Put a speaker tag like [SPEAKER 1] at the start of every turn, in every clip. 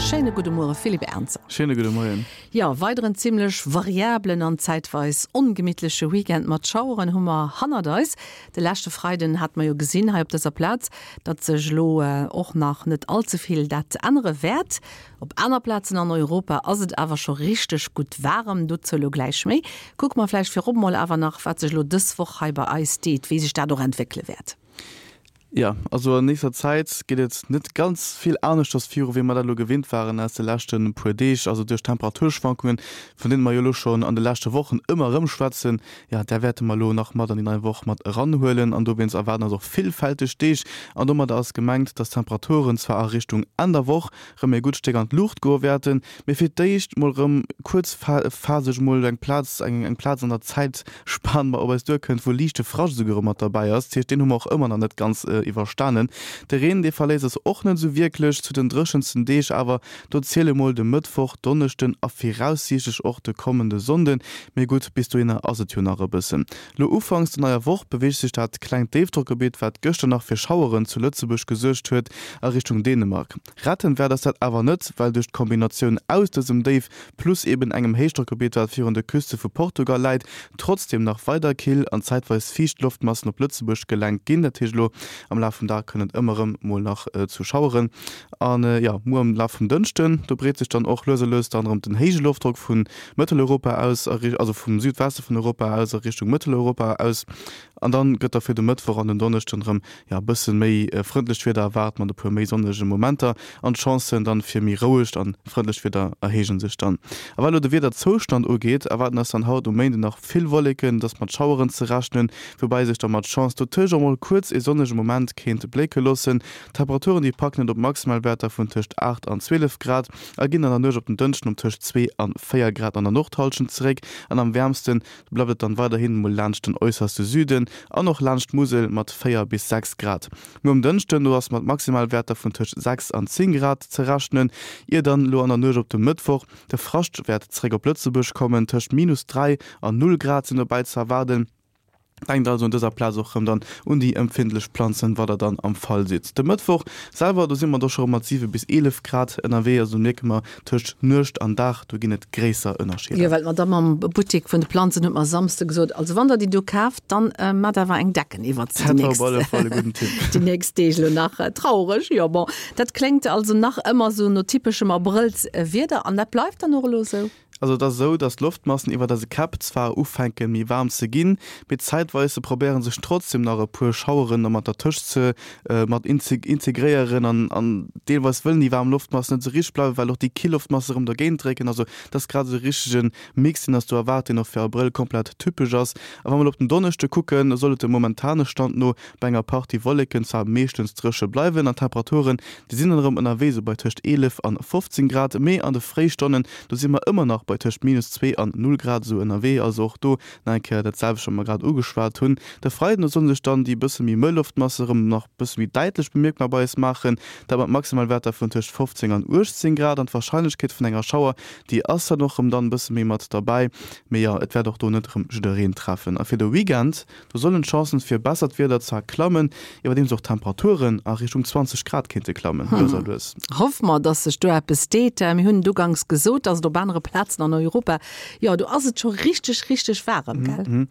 [SPEAKER 1] Schéine gudde Muere Philippe Ernzer.
[SPEAKER 2] Schéine gudde Moien.
[SPEAKER 1] Jo, weideren zimmlech variablen an zäitweis ongemittleche Weekend mat Schaueren hu mer hannert eis. De leschte Freiden hate mer jo gesinn hei op dëser Plaz, datt sech elo och nach net all ze vill dat ännere wäert. Op aner Plazen an Europa ass et awer scho richteg gutt waarem, dozou elo gläich méi. Kucke mer vläicht virop mol awer nach, wat sech elo dës Woch hei bei eis deet, wéi sech dat och entwéckele wäert.
[SPEAKER 2] Jo, also an nächster Zäit geet et net ganz vill aneschters viru wéi mer dat elo gewinnt waren aus de leschte puer Deeg. Also duerch d'Temperaturschwankungen, vun deene mer jo elo schonn an de leschte Wochen ëmmer erëm schwätzen, jo, där wäerte mer elo nach mat an déi nei Woch mat eranhuelen. An dowéinst erwaarden eis och villfälteg Deeg. An domadder ass gemengt, dass d'Temperaturen zwar a Richtung Enn der Woch rëm e gutt Stéck an d'Luucht goe wäerten, mee fir d'éischt mol rëm kuerzphaseg mol eng Plaz, eng Plaz an der Zäitspan op eis duerkënnt, wou liichte Frascht esouguer rëm mat derbäi ass. Dat heescht, deen hu mer och ëmmer nach net ganz iwwerstanen. De Reen, dee verléisst eis och net esou wierklech. Zu den dréchensten Deeg awer, do ziele mol de Mëttwoch, Donneschden a viraussiichtlech och de kommende Sonnden. Mee gutt, bis dohinner ass et jo nach e bëssen. Lo ufanks der neier Woch beweegt sech dat klengt Déifdrockgebitt, wat gëschter nach fir Schaueren zu Lëtzebuerg gesuergt huet, a Richtung Dänemark. Retten wäert eis dat awer net, well duerch d'Kombinatioun aus dësem Déif plus eben engem Héichdrockgebitt, wat virun de Küste vu Portugal läit, trotzdeem nach weider kill an zäitweis fiicht Loftmassen op Lëtzebuerg gelenkt ginn. Dat heescht, elo am Laf vum Dag kënnt et ëmmer erëm mol nach zu Schaueren. An jo, muer am Laf vum Dënschden, do breet sech dann och lues a lues dann erëm den héije Loftdrock vu Mëtteleuropa aus, also vum Südweste vun Europa aus a Richtung Mëtteleuropa aus. An dann gëtt da fir de Mëttwoch an den Donneschden erëm, jo, e bësse méi frëndlecht Wieder erwaart mat e puer méi sonnege Momenter an d'Chancen dann fir méi rouegt an frëndlecht Wieder erhéije sech dann. A wat elo de Wiederzoustand ugeet, erwaarden eis dann haut um Méinden nach vill Wolleken, et ass mat Schaueren ze rechnen, woubäi sech da mat Chance dotëscht och mol kuerz ee sonnege Moment kéint blécke loossen. D'Temperaturen, déi packen et op Maximalwäerter vun tëscht 8 an 12 Grad a ginn an der Nuecht op den Dënschden op tëscht 2 an 4 Grad an der Nordhallschent zeréck. An am wäermste bleift et dann weiderhin mol laanscht den äusserste Süden an och laanscht d'Musel mat 4 bis 6 Grad. Muer um Dënschden, do ass mat Maximalwäerter vun tëscht 6 an 10 Grad ze rechnen, ier dann elo an der Nuecht op de Mëttwoch de Frascht wäert zeréck op Lëtzebuerg kommen. Tëscht minus 3 an 0 Grad sinn dobäi ze erwaarden. Denkt also un dëser Plaz och rëm dann un déi empfindlech Planzen, wa der dann am Fall sidd. De Mëttwoch selwer, do si mer do scho rëm mat 7 bis 11 Grad ënnerwee, also do mierke mer tëscht Nuecht an Dag, do ginn et gréisser Ënnerscheeder.
[SPEAKER 1] Jo, well d'Madamm am Buttek vun de Planzen huet mer e Samsde gesot, also wann der déi do kaaft, dann maacht awer eng Decken iwwert se
[SPEAKER 2] déi nächst, Dat war op alle Fall e gudden Tipp.
[SPEAKER 1] déi nächst Deeg elo nach. Traureg, jo bon, dat kléngt also nach ëmmer sou no typeschem Abrëllswieder an dat bleift dann och elo esou?
[SPEAKER 2] Also et ass esou, dass d'Loftmassen iwwert eise Käpp zwar ufänke méi waarm ze ginn, mee zäitweis probéiere sech trotzdem nach e puer Schaueren da mat dertëscht ze mat integréieren an an deelweis wëllen déi waarm Loftmassen net esou richteg bleiwen, well och déi kill Loftmasse erëm dergéint drécken. Also et ass grad esou e richtege Mix, deen ass do erwaart, deen och fir Abrëll komplett typesch ass. A wa mer elo op den Donneschde kucken, da soll et dem momentane Stand no bei enger Partie Wolleken zwar meeschtens dréche bleiwen an d'Temperaturen, déi sinn dann erëm ënnerwee sou bei tëscht 11 an 15 Grad, mee an de Fréistonnen, do si mer ëmmer nach bei tëscht minus 2 an 0 Grad esou ënnerwee, also och do nach eng Kéier dat selwecht, wat mer grad ugeschwat hunn. De Freiden, do solle sech dann déi bësse méi mëll Loftmasse erëm nach bësse méi däitlech bemierkbar bei eis maachen, dat mat Maximalwäerter vun tëscht 15 an 18 Grad an d'Warscheinlechkeet vun enger Schauer, déi ass dann och erëm dann bësse méi mat derbäi, mee jo, et wäert och do net erëm jiddereen treffen. A fir de Weekend, Do sollen d'Chancen fir bessert Wieder zwar klammen, iwwerdeems och d'Temperaturen a Richtung 20 Grad kéinte klammen, lues a lues.
[SPEAKER 1] Hoffe mer, dass sech do eppes deet. Mir hunn et uganks gesot, dass et op anere Plazen an Europa, jo, do ass et scho richteg, richteg waarem, gell?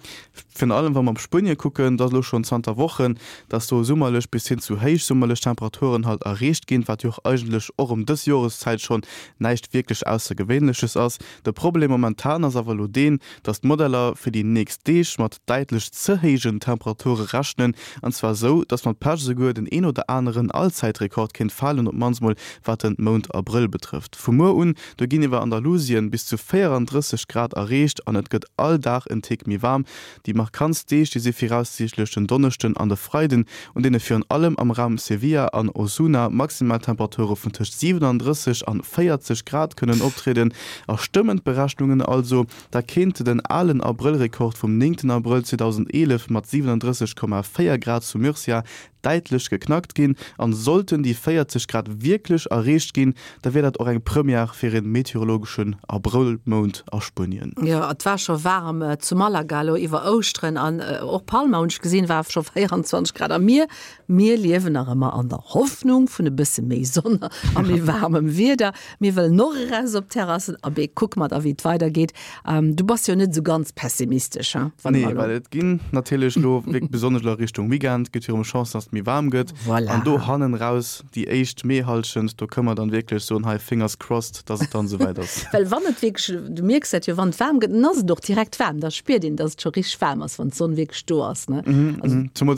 [SPEAKER 2] Virun allem wa mer op Spuenie kucken, da ass elo schonn zanter Wochen, dass do summerlech bis hin zu héichsummerlech Temperaturen halt erreecht ginn, wat jo och eigentlech och ëm dës Joreszäit schonn näischt wierklech Aussergewéinleches ass. De Problem momentan ass awer elo deen, dass d'Modeller fir déi nächst Deeg mat däitlech ze héijen Temperature rechnen, an zwar esou, dass mat Pech esouguer den een oder aneren Allzäitrekord kéint falen, op d'mannst mol wat den Mount Abrëll betrëfft. Vu muer un, do ginn iwwer Andalusien bis zu 34 Grad erreecht an et gëtt all Dag en Tick méi waarm. Déi markantst Deeg, déi si viraussiichtlech den Donneschden an de Freiden, un deene virun allem am Raum Sevilla an Osuna Maximaltemperature vun tëscht 37 an 40 Grad kënnen optrieden. A stëmmen d'Berechnungen also, da kéint den alen Abrëllrekord vum 9 Abrëll 2011 mat 37,4 Grad zu Murcia däitlech geknackt ginn. An sollten déi 40 Grad wierklech erreecht ginn, da wier dat och eng Première fir ee meteorologeschen Abrëllrekord. Vollmound a Spuenien.
[SPEAKER 1] Jo, et war scho waarem zu Malaga elo iwwer Ouschteren an och Palma hunn ech gesinn, war scho 24 Grad. A mir, mir liewen nach ëmmer an der Hoffnung vun e bësse méi Sonn a méi waarmem Wieder. Mir wëllen och eraus op d'Terrassen. Abee, kucke mer da wéi et weidergeet. Du bass jo net esou ganz pessimistesch,
[SPEAKER 2] hein? Wann Nee, well et ginn natierlech elo wierklech besonnesch elo a Richtung Weekend gëtt jo erëm Chancen, dass et méi waarm gëtt.
[SPEAKER 1] Voilà.
[SPEAKER 2] An do hannen raus déi éischt Meehalschent, do kënne mer dann wierklech soen, hei fingers crossed, dass et dann esouwäit ass.
[SPEAKER 1] Well wann et wierklech, du mierks dat jo, wann et waarm gëtt, dann ass et och direkt waarm, da spiert een, dass et scho richteg waarm ass, wann d'Sonn wierklech do ass, ne?
[SPEAKER 2] Also. Zemools.